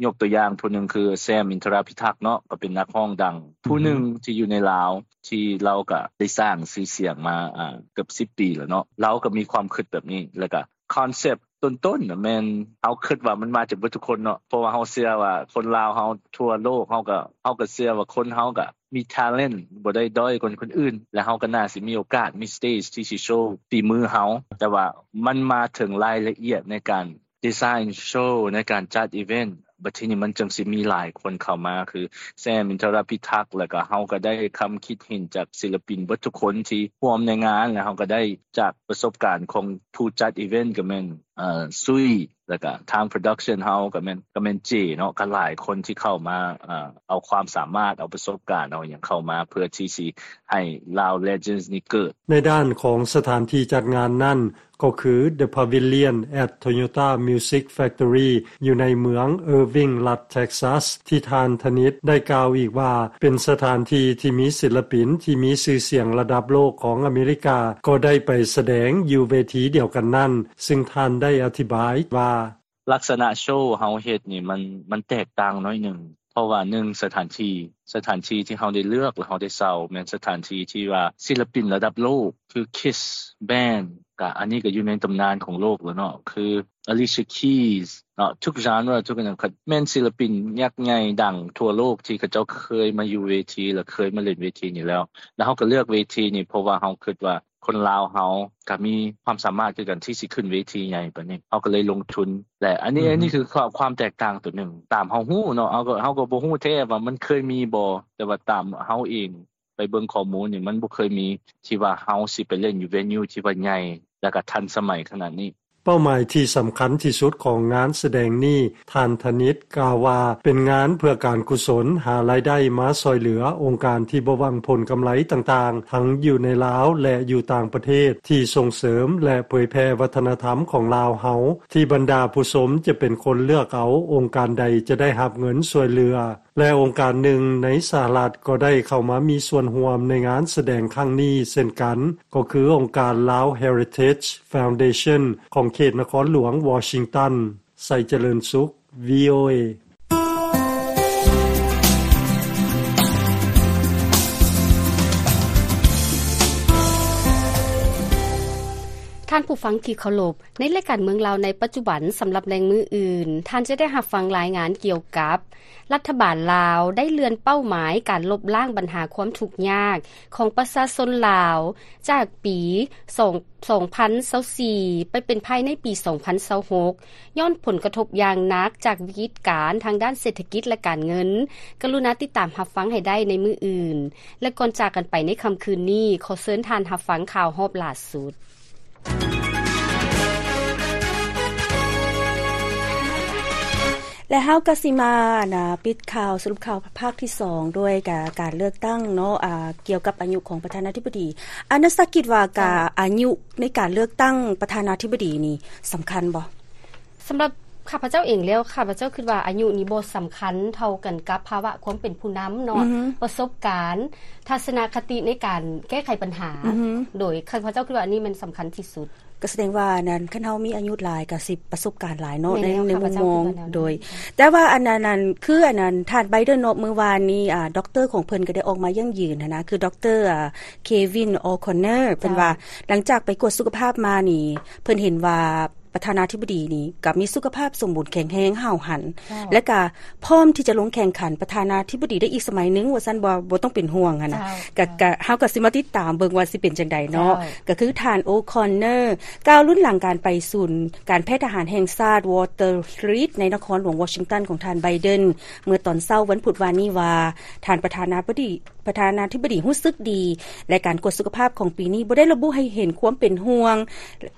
ຍົກຕົວຢ່າງຜູ້ໜຶ່ງຄື ແຊມ ອິນທະຣາພິທັກ ເນາະ ກໍເປັນນັກຮ້ອງດັງຜູ້ໜຶ່ງທີ່ຢູ່ໃນລາວ ທີ່ລາວກໍໄດ້ສ້າງຊື່ສຽງມາ ອາ ເກືອບສິບປີແລ້ວເນາະ. ລາວກໍມີຄວາມຄິດແບບນີ້ ແລ້ວກໍຄອນເຊັບຕົ້ນໆນະ ແມ່ນເຮົາຄິດວ່າມັນມາຈາກເບິດທຸກຄົນເນາະ ເພາະວ່າເຮົາເຊື່ອວ່າຄົນລາວເຮົາທົ່ວໂລກ ເຮົາກໍ ເຮົາກໍເຊື່ອວ່າຄົນເຮົາກໍມີ talent ບໍ່ໄດ້ດ້ອຍກວ່າຄົນອື່ນ ແລະ ເຮົາກໍໜ້າຊິມີໂອກາດ ມີ stage ທີ່ຊິໂຊຝີມືເຮົາ. ແຕ່ວ່າມັນມາເຖິງລາຍລະອຽດໃນການ design show ໃນການຈັດ event ບັດທີນີ້ມັນຈຶ່ງຊິມີຫຼາຍຄົນເຂົ້າມາ ຄື ແຊມ ອິນທະຣາພິທັກ ແລ້ວກໍເຮົາກໍໄດ້ຄຳຄິດເຫັນຈາກສິລະປິນເບິດທຸກຄົນທີ່ຮ່ວມໃນງານ ແລ້ວເຮົາກໍໄດ້ຈາກປະສົບການຂອງຜູ້ຈັດ event ກໍແມ່ນ ເອີ ຊຸຍ ແລ້ວກະທາງ production ເຮົາກໍແມ່ນ ກໍແມ່ນເຈເນາະ ກໍຫຼາຍຄົນທີ່ເຂົ້າມາ ເອີ ເອົາຄວາມສາມາດ ເອົາປະສົບການ ເອົາຫຍັງເຂົ້າມາ ເພື່ອທີ່ຊິໃຫ້ Lao Legends ນີ້ເກີດ. ໃນດ້ານຂອງສະຖານທີ່ຈັດງານນັ້ນ ກໍຄື The Pavilion at Toyota Music Factory ຢູ່ໃນເມືອງ Irving ລັດ Texas ທີ່ທ່ານທະນິດໄດ້ກ່າວອີກວ່າ ເປັນສະຖານທີ່ທີ່ມີສິລະປິນທີ່ມີຊື່ສຽງລະດັບໂລກຂອງອາເມລິກາ ກໍໄດ້ໄປສະແດງຢູ່ເວທີດຽວກັນນັ້ນ. ຊຶ່ງທ່ານໄດ້ອະທິບາຍວ່າ ລັກສະນະໂຊເຮົາເຮັດນີ້ມັນ ມັນແຕກຕ່າງໜ້ອຍໜຶ່ງ ເພາະວ່າໜຶ່ງ ສະຖານທີ່ ສະຖານທີ່ທີ່ເຮົາໄດ້ເລືອກ ແລະ ເຮົາໄດ້ເຊົ່າ ແມ່ນສະຖານທີ່ທີ່ວ່າສິລະປິນລະດັບໂລກ ຄື Kiss Band ກະ ອັນນີ້ກະຢູ່ໃນຕຳນານຂອງໂລກແລ້ວເນາະ ຄື Alicia Keys ເນາະ ທຸກ genre ທຸກອັນນັ້ນ ແມ່ນສິລະປິນຍັກໃຫຍ່ດັງທົ່ວໂລກທີ່ເຂົາເຈົ້າເຄີຍມາຢູ່ເວທີ ແລະ ເຄີຍມາຫຼິ້ນເວທີນີ້ແລ້ວ. ແລ້ວເຮົາກະເລືອກເວທີນີ້ ເພາະວ່າເຮົາຄິດວ່າ ຄົນລາວເຮົາກະມີຄວາມສາມາດຄືກັນທີ່ຊິຂຶ້ນເວທີໃຫຍ່ປານນີ້ ເຮົາກໍເລີຍລົງທຶນ ແລະ ອັນນີ້ ອືຮຶ ອັນນີ້ຄືຄວາມ ຄວາມແຕກຕ່າງໂຕໜຶ່ງ ຕາມເຮົາຮູ້ເນາະ ເຮົາກໍ ເຮົາກໍບໍ່ຮູ້ແທ້ວ່າມັນເຄີຍມີບໍ່ ແຕ່ວ່າຕາມເຮົາເອງໄປເບິ່ງຂໍ້ມູນນີ້ ມັນບໍ່ເຄີຍມີທີ່ວ່າເຮົາຊິໄປຫຼິ້ນຢູ່ venue ທີ່ວ່າໃຫຍ່ ແລ້ວກໍທັນສະໄໝຂະໜາດນີ້. ເປົ້າໝາຍທີ່ສຳຄັນທີ່ສຸດຂອງງານສະແດງນີ້, ທ່ານທະນິດກ່າວວ່າ ເປັນງານເພື່ອການກຸສົນ, ຫາລາຍໄດ້ມາຊ່ອຍເຫຼືອອົງການທີ່ບໍ່ຫວັງຜົນກຳໄລຕ່າງໆ, ທັງຢູ່ໃນລາວ ແລະ ຢູ່ຕ່າງປະເທດ, ທີ່ສົ່ງເສີມ ແລະ ເຜີຍແຜ່ວັດທະນະທຳຂອງລາວເຮົາ, ທີ່ບັນດາຜູ້ຊົມຈະເປັນຄົນເລືອກເອົາອົງການໃດຈະໄດ້ຮັບເງິນຊ່ວຍເຫຼືອ. ແລະ ອົງການໜຶ່ງໃນສະຫະລັດກໍໄດ້ເຂົ້າມາມີສ່ວນຮ່ວມໃນງານສະແດງຄັ້ງນີ້ເຊັ່ນກັນ, ກໍຄືອົງການ Lao Heritage Foundation ຂອງເຂດນະຄອນຫຼວງວໍຊິງຕັນ. ໄຊຈະເລີນສຸກ ວີໂອເອ. ທ່ານຜູ້ຟັງທີ່ເຄົາລົບ, ໃນລາຍການເມືອງລາວໃນປັດຈຸບັນ ສຳລັບໃນມື້ອື່ນ, ທ່ານຈະໄດ້ຮັບຟັງລາຍງານກ່ຽວກັບ ລັດຖະບານລາວໄດ້ເລື່ອນເປົ້າໝາຍການລົບລ້າງບັນຫາຄວາມທຸກຍາກຂອງປະຊາຊົນລາວ ຈາກປີສອງ ສອງພັນຊາວສີ່ ໄປເປັນພາຍໃນປີສອງພັນຊາວຫົກ ຍ້ອນຜົນກະທົບຢ່າງໜັກຈາກວິກິດການທາງດ້ານເສດຖະກິດ ແລະ ການເງິນ. ກະລຸນາຕິດຕາມຮັບຟັງໃຫ້ໄດ້ໃນມື້ອື່ນ. ແລະ ກ່ອນຈາກກັນໄປໃນຄ່ຳຄືນນີ້, ຂໍເຊີນທ່ານຮັບຟັງຂ່າວຮອບຫຼ້າສຸດ. ແລະ ເຮົາກໍຊິມາ ນະ ປິດຂ່າວ ສະຫຼຸບຂ່າວພາກທີສອງ ດ້ວຍກາ ການເລືອກຕັ້ງເນາະ ອາ ກ່ຽວກັບອາຍຸຂອງປະທານາທິບໍດີ. ອາ ນັກສຶກສາຄິດວ່າ ກາ ເຈົ້າ ອາຍຸໃນການເລືອກຕັ້ງປະທານາທິບໍດີນີ້ສຳຄັນບໍ່? ສຳລັບຂ້າພະເຈົ້າເອງແລ້ວ, ຂ້າພະເຈົ້າຄິດວ່າອາຍຸນີ້ບໍ່ສຳຄັນເທົ່າກັນກັບພາວະຄວາມເປັນຜູ້ນຳເນາະ, ອືຮຶ ປະສົບການ, ທັດສະນະຄະຕິໃນການແກ້ໄຂບັນຫາ, ອືຮຶ ໂດຍຂ້າພະເຈົ້າຄິດວ່າອັນນີ້ແມ່ນສຳຄັນທີ່ສຸດ. ກໍສະແດງວ່າອັນນັ້ນ ຄັນເຮົາມີອາຍຸຫຼາຍກໍຊິປະສົບການຫຼາຍເນາະ ໃນ ໃນມຸມມອງ ໂດຍ ແຕ່ວ່າອັນນັ້ນ ຄືອັນນັ້ນ ທ່ານໄບເດີນເນາະ ມື້ວານນີ້ ອາ ດັອກເຕີຂອງເພິ່ນກໍໄດ້ອອກມາຢັ້ງຢືນຫັ້ນນະ, ຄືດັອກເຕີ ອາ ເຄວິນ ໂອຄອນເນີ ເພິ່ນວ່າ ເຈົ້າ ຫຼັງຈາກໄປກວດສຸຂະພາບມານີ້ ເພິ່ນເຫັນວ່າ ປະທານາທິບໍດີນີ້ກໍມີສຸຂະພາບສົມບູນແຂງແຮງຫ້າວຫັນ ເຈົ້າ ແລະກະພ້ອມທີ່ຈະລົງແຂ່ງຂັນປະທານາທິບໍດີໄດ້ອີກສະໄໝໜຶ່ງວ່າຊັ້ນ ບໍ່ ບໍ່ຕ້ອງເປັນຫ່ວງຫັ້ນນະ. ເຈົ້າ ກະ ເຈົ້າ ກະ ເຮົາກໍຊິມາຕິດຕາມເບິ່ງວ່າຊິເປັນຈັ່ງໃດເນາະ. ເຈົ້າ ກະຄືທ່ານ ໂອຄອນເນີ ກ່າວລຸ້ນຫຼັງການໄປສູນການແພດທະຫານແຫ່ງຊາດ ວໍເຕີຣຣີດ ໃນນະຄອນຫຼວງວໍຊິງຕັນຂອງທ່ານໄບເດີນ ເມື່ອຕອນເຊົ້າວັນພຸດວານນີ້ວ່າ ທ່ານປະທານາທິບໍດີ ປະທານາທິບໍດີຮູ້ສຶກດີ ແລະ ການກວດສຸຂະພາບຂອງປີນີ້ບໍ່ໄດ້ລະບຸໃຫ້ເຫັນຄວາມເປັນຫ່ວງ.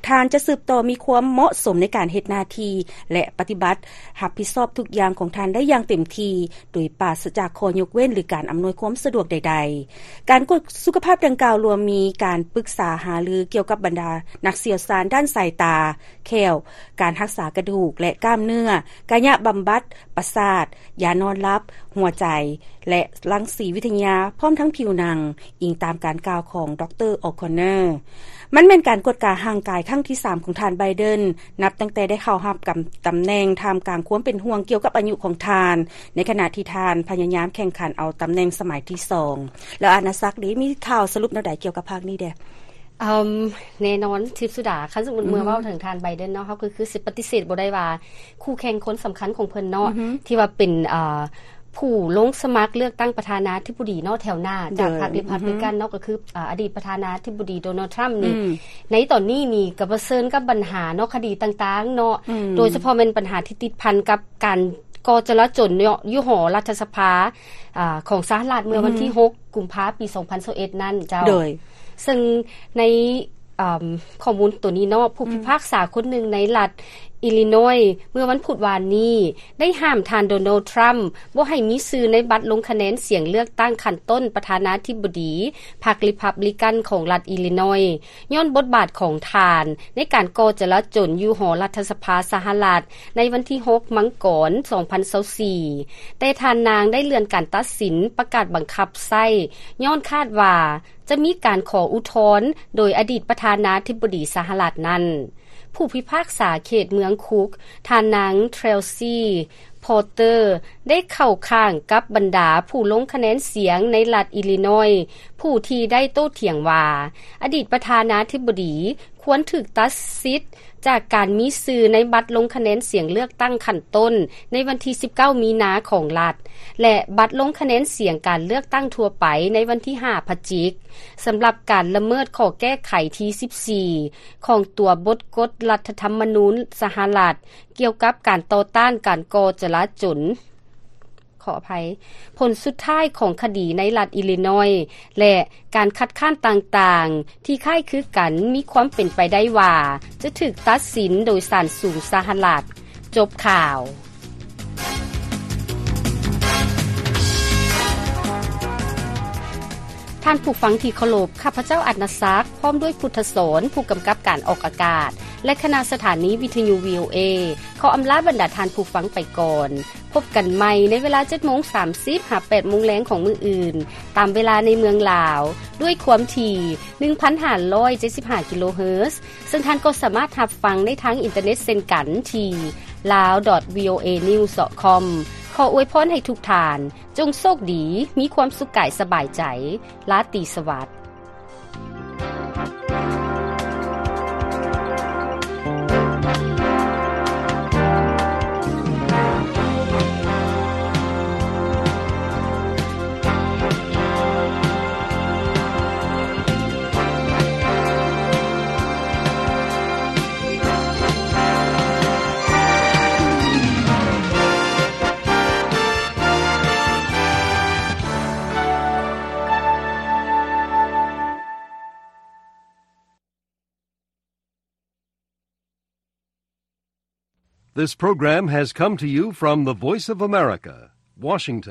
ທ່ານຈະສືບຕໍ່ມີຄວາມເໝາະສົມໃນການເຮັດໜ້າທີ່ ແລະ ປະຕິບັດຮັບຜິດຊອບທຸກຢ່າງຂອງທ່ານໄດ້ຢ່າງເຕັມທີ່ ໂດຍປາສະຈາກຂໍ້ຍົກເວັ້ນ ຫຼື ການອຳນວຍຄວາມສະດວກໃດໆ. ການກວດສຸຂະພາບດັ່ງກ່າວລວມມີການປຶກສາຫາລືກ່ຽວກັບບັນດານັກຊ່ຽວຊານດ້ານສາຍຕາ, ແຂ້ວ, ການຮັກສາກະດູກ ແລະ ກ້າມເນື້ອ, ກາຍະບຳບັດ, ປະສາດ, ຢານອນຫຼັບ, ຫົວໃຈ ແລະ ລັງສີວິທະຍາ ພ້ອມທັງຜິວໜັງ, ອີງຕາມການກ່າວຂອງ ດຣ. ໂອຄອນເນີ. ມັນແມ່ນການກວດກາຮ່າງກາຍຄັ້ງທີສາມຂອງທ່ານໄບເດີນ ນັບຕັ້ງແຕ່ໄດ້ເຂົ້າຮັບກຳ ຕຳແໜ່ງ ທ່າມກາງຄວາມເປັນຫ່ວງກ່ຽວກັບອາຍຸຂອງທ່ານ ໃນຂະນະທີ່ທ່ານພະຍາຍາມແຂ່ງຂັນເອົາຕຳແໜ່ງສະໄໝທີສອງ. ແລ້ວອານາສັກເດ ມີຂ່າວສະຫຼຸບແນວໃດກ່ຽວກັບພາກນີ້ແດ່? ເອີ່ມ ແນ່ນອນ ທິບສຸດາ ຄັນສົມມຸດເມື່ອເວົ້າເຖິງທ່ານໄບເດັນເນາະ ເຮົາກໍຄືຊິປະຕິເສດບໍ່ໄດ້ວ່າຄູ່ແຂ່ງຄົນສຳຄັນຂອງເພິ່ນເນາະ ທີ່ວ່າເປັນ ເອີ່ ຜູ້ລົງສະໝັກເລືອກຕັ້ງປະທານາທິບໍດີເນາະ ແຖວໜ້າຈາກພັກ Republican ເນາະ ກໍຄື ອາ ອະດີດປະທານາທິບໍດີ ໂດນັລ ທຣຳ ນີ້ ໃນຕອນນີ້ນີ້ກໍປະເຊີນກັບບັນຫາເນາະ ຄະດີຕ່າງໆເນາະ ໂດຍສະເພາະແມ່ນບັນຫາທີ່ຕິດພັນກັບການກໍ່ຈະລາຈົນເນາະ ຢູ່ຫໍລັດຖະສະພາ ອາ ຂອງສະຫະລັດ ເມື່ອວັນທີຫົກ ກຸມພາ ປີສອງພັນຊາວເອັດນັ້ນເຈົ້າ. ໂດຍ ເຊິ່ງໃນ ອາ ຂໍ້ມູນໂຕນີ້ເນາະ ຜູ້ພິພາກສາຄົນໜຶ່ງໃນລັດ Illinois ເມື່ອວັນພຸດວານນີ້ ໄດ້ຫ້າມທ່ານ ໂດນັລ ທຣຳ ບໍ່ໃຫ້ມີຊື່ໃນບັດລົງຄະແນນສຽງເລືອກຕັ້ງຂັ້ນຕົ້ນປະທານາທິບໍດີ ພັກ Republican ຂອງລັດ Illinois ຍ້ອນບົດບາດຂອງທ່ານໃນການກໍ່ຈະລາຈົນຢູ່ຫໍລັດຖະສະພາສະຫະລັດ ໃນວັນທີຫົກ ມັງກອນ ສອງພັນຊາວສີ່ ແຕ່ທ່ານນາງໄດ້ເລື່ອນການຕັດສິນປະກາດບັງຄັບໃຊ້ ຍ້ອນຄາດວ່າຈະມີການຂໍອຸທອນໂດຍອະດີດປະທານາທິບໍດີສະຫະລັດນັ້ນ. ຜູ້ພິພາກສາເຂດເມືອງຄຸກ ທ່ານນາງ ເທຣວຊີ ພອເຕີ ໄດ້ເຂົ້າຂ້າງກັບບັນດາຜູ້ລົງຄະແນນສຽງໃນລັດ Illinois ຜູ້ທີ່ໄດ້ໂຕ້ຖຽງວ່າ ອະດີດປະທານາທິບໍດີຄວນຖືກຕັດສິດຈາກການມີຊື່ໃນບັດລົງຄະແນນສຽງເລືອກຕັ້ງຂັ້ນຕົ້ນໃນວັນທີສິບເກົ້າ ມີນາຂອງລັດ ແລະ ບັດລົງຄະແນນສຽງການເລືອກຕັ້ງທົ່ວໄປໃນວັນທີຫ້າ ພະຈິກ ສຳລັບການລະເມີດຂໍ້ແກ້ໄຂທີສິບສີ່ ຂອງຕົວບົດກົດລັດຖະທຳມະນູນສະຫະລັດ ກ່ຽວກັບການຕໍ່ຕ້ານການກໍ່ຈະລາຈົນ. ຂໍອະໄພ, ຜົນສຸດທ້າຍຂອງຄະດີໃນລັດອີລີນອຍ ແລະ ການຄັດຄ້ານຕ່າງໆ ທີ່ຄ້າຍຄືກັນ ມີຄວາມເປັນໄປໄດ້ວ່າ ຈະຖືກຕັດສິນໂດຍສານສູງສະຫະລັດ. ຈົບຂ່າວ. ທ່ານຜູ້ຟັງທີ່ເຄົາລົບ, ຂ້າພະເຈົ້າ ອັດນະສັກ ພ້ອມດ້ວຍ ພຸດທະສອນ ຜູ້ກຳກັບການອອກອາກາດ ແລະ ຄະນະສະຖານີວິທະຍຸ ວີໂອເອ ຂໍອຳລາບັນດາທ່ານຜູ້ຟັງໄປກ່ອນ. ພົບກັນໃໝ່ໃນເວລາ ເຈັດໂມງສາມສິບ ຫາ ແປດໂມງແລງຂອງມື້ອື່ນ ຕາມເວລາໃນເມືອງລາວ ດ້ວຍຄວາມຖີ່ ໜຶ່ງພັນຫ້າຮ້ອຍເຈັດສິບຫ້າ ກິໂລເຮີດ, ເຊິ່ງທ່ານກໍສາມາດຮັບຟັງໄດ້ທາງອິນເຕີເນັດເຊັ່ນກັນທີ່ lawdotvoanews.com. ຂໍອວຍພອນໃຫ້ທຸກທ່ານ ຈົ່ງໂຊກດີ, ມີຄວາມສຸກກາຍສະບາຍໃຈ. ລາຕີສະຫວັດ. This program has come to you from the Voice of America, Washington.